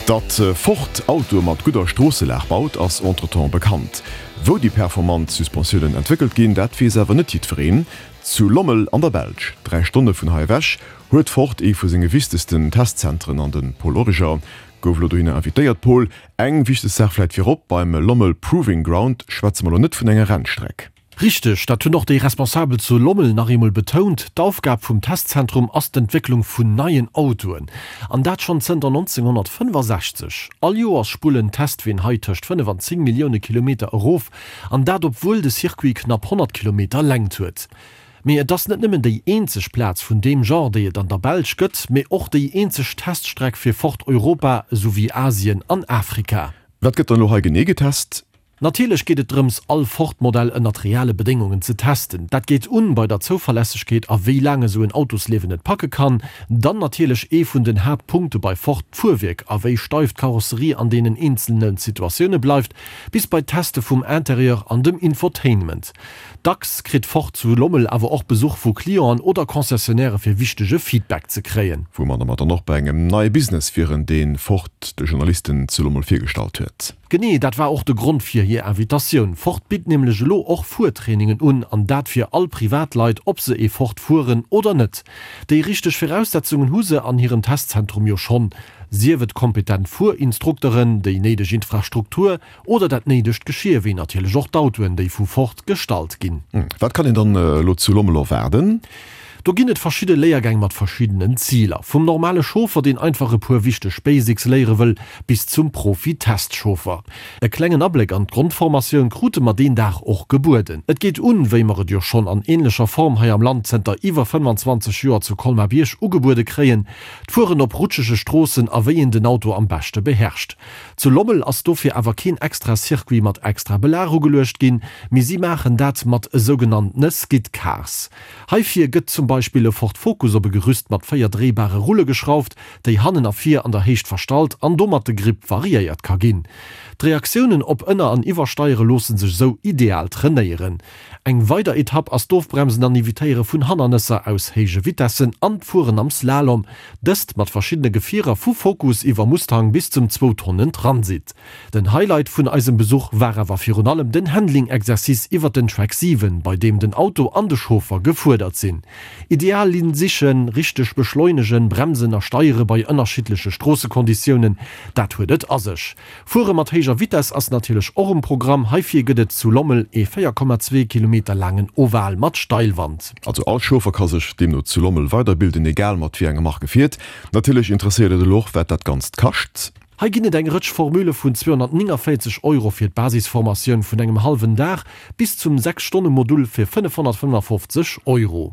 Datt Ford Autoe mat gudder Stroosselag baut, ass entretemps bekannt. Wou déi performant Suspensiounen entwéckelt ginn, dat weess awer net jiddwereen. Zu Lommel an der Belsch, 3 Stonne vun hei ewech, huet Ford ee vu senge wichtegsten Testzentren an de Paul Origer gouf elo dohinner invitéiert. Paul, eng wichteg Saach vläit virop, Beim Lommel Proving Ground schwätze mer elo net vun enger Rennstreck. Richteg, dat hunn och déi Responsabel zu Lommel nach eemol betount, D'Aufgab vum Testzentrum ass d'Entwécklung vun neien Autoen. An dat schonn zënter 1965. All Joers spullen d'Testween hei tëscht 5 an 10 Millioune Kilometer erof, an dat obwuel de Circuit knapp 100 Kilometer Längt huet. Mee et ass net nëmmen déi eenzeg Plaz vun deem Genre, déi et an der Belsch gëtt, mee och déi eenzeg Teststreck fir Ford Europa esouwéi Asien an Afrika. Wat gëtt dann elo hei genee getest? Natierlech geet et drëms, all Ford-Modell ënnert reale Bedéngungen ze testen. Dat geet un bei der Zouverlässegkeet a wéi laang esou en Autosliewen et packe kann. Dann natierlech ee vun den Haaptpunkte bei Ford, d'Fuerwierk a wéi steif d'Karosserie an deenen eenzelne Situatioune bleift, bis bei d'Teste vum Interieur an dem Infotainment. Dacks kritt Ford zu Lommel awer och Besuch vu Clienten oder Concessionnairë fir wichtege Feedback ze kréien. Woumadder mer dann och bei engem neie Business wieren, dee Ford de Journalisten zu Lommel virgestallt huet. Genee dat war och de Grond fir hir Invitatioun. Ford bitt nämlech elo och Fuertrainingen un, an dat fir all Privatleit, ob se ee Ford fueren oder net. Déi richteg Viraussetzungen hu se an hirem Testzentrum jo schonn, sief et kompetent Fuerinstrukteren, déi néideg Infrastruktur oder dat néidegt Geschier, wéi natierlech och d'Autoen, déi vu Ford gestallt ginn. Wat kann een dann elo zu Lommel erwaarden? Do ginn et verschidde Léiergäng mat verschiddenen Ziler. Vum normale Chauffer, deen einfach e puer wichteg Basics léiere wëll, bis zum Profi-Testchauffer. E klengen Abléck an d'Grondformatioun krute mer deen Dag och gebueden. Et geet un, wéi mer et jo schonn an änlecher Form hei am Land zënter iwwer 25 Joer zu Colmar-Bierg ugebuede kréien, d'Fueren op rutschege Stroossen a wéi een den Auto am beschte beherrscht. Zu Lommel ass dofir awer keen extra Circuit mat extra Belag ugeluecht ginn, mee si maachen dat mat esougenanntene Skid Cars. Heifir gëtt zum Beispill e Ford Focus op e Gerüst mat 4 dréibare Rulle geschrauft, déi hannen a vir an der Héicht verstallt an domat de Grip variéiert ka ginn. D'Reaktiounen op Ënner an Iwwersteiere loosse sech esou ideal trainéieren. Eng weider Etapp ass d'Ofbremsen an Evitéiere vun Hannernesser aus héije Vitessen an d'Fueren am Slalom, dëst mat verschiddene Gefierer vu Focus iwwer Mustang bis zum zwou Tonnen Transit. Den Highlight vun eisem Besuch war awer virun allem den Handling-Exercice iwwer den Track 7, bei deem den Auto an de Chauffer gefuerdert sinn. Ideal Linn sichen, richteg beschleunegen, bremsen a steiere bei ënnerschiddleche Stroossekonditiounen, dat huet et a sech. Fuere mat héijer Vitess ass natierlech och um Programm. Heifir gëtt et zu Lommel ee 4,2 Kilometer laangen Oval mat Steilwand. Also all Chauffer ka sech deemno zu Lommel weiderbilden, egal mat wéi enger Mark e fiert. Natierlech interesséiert et elo och, wat dat Ganzt kascht. Hei ginn et eng Rëtsch Formule vun 249 Euro fir d'Basisformatioun vun engem hallwen Dag bis zum 6 Stonne Modul fir 555 Euro.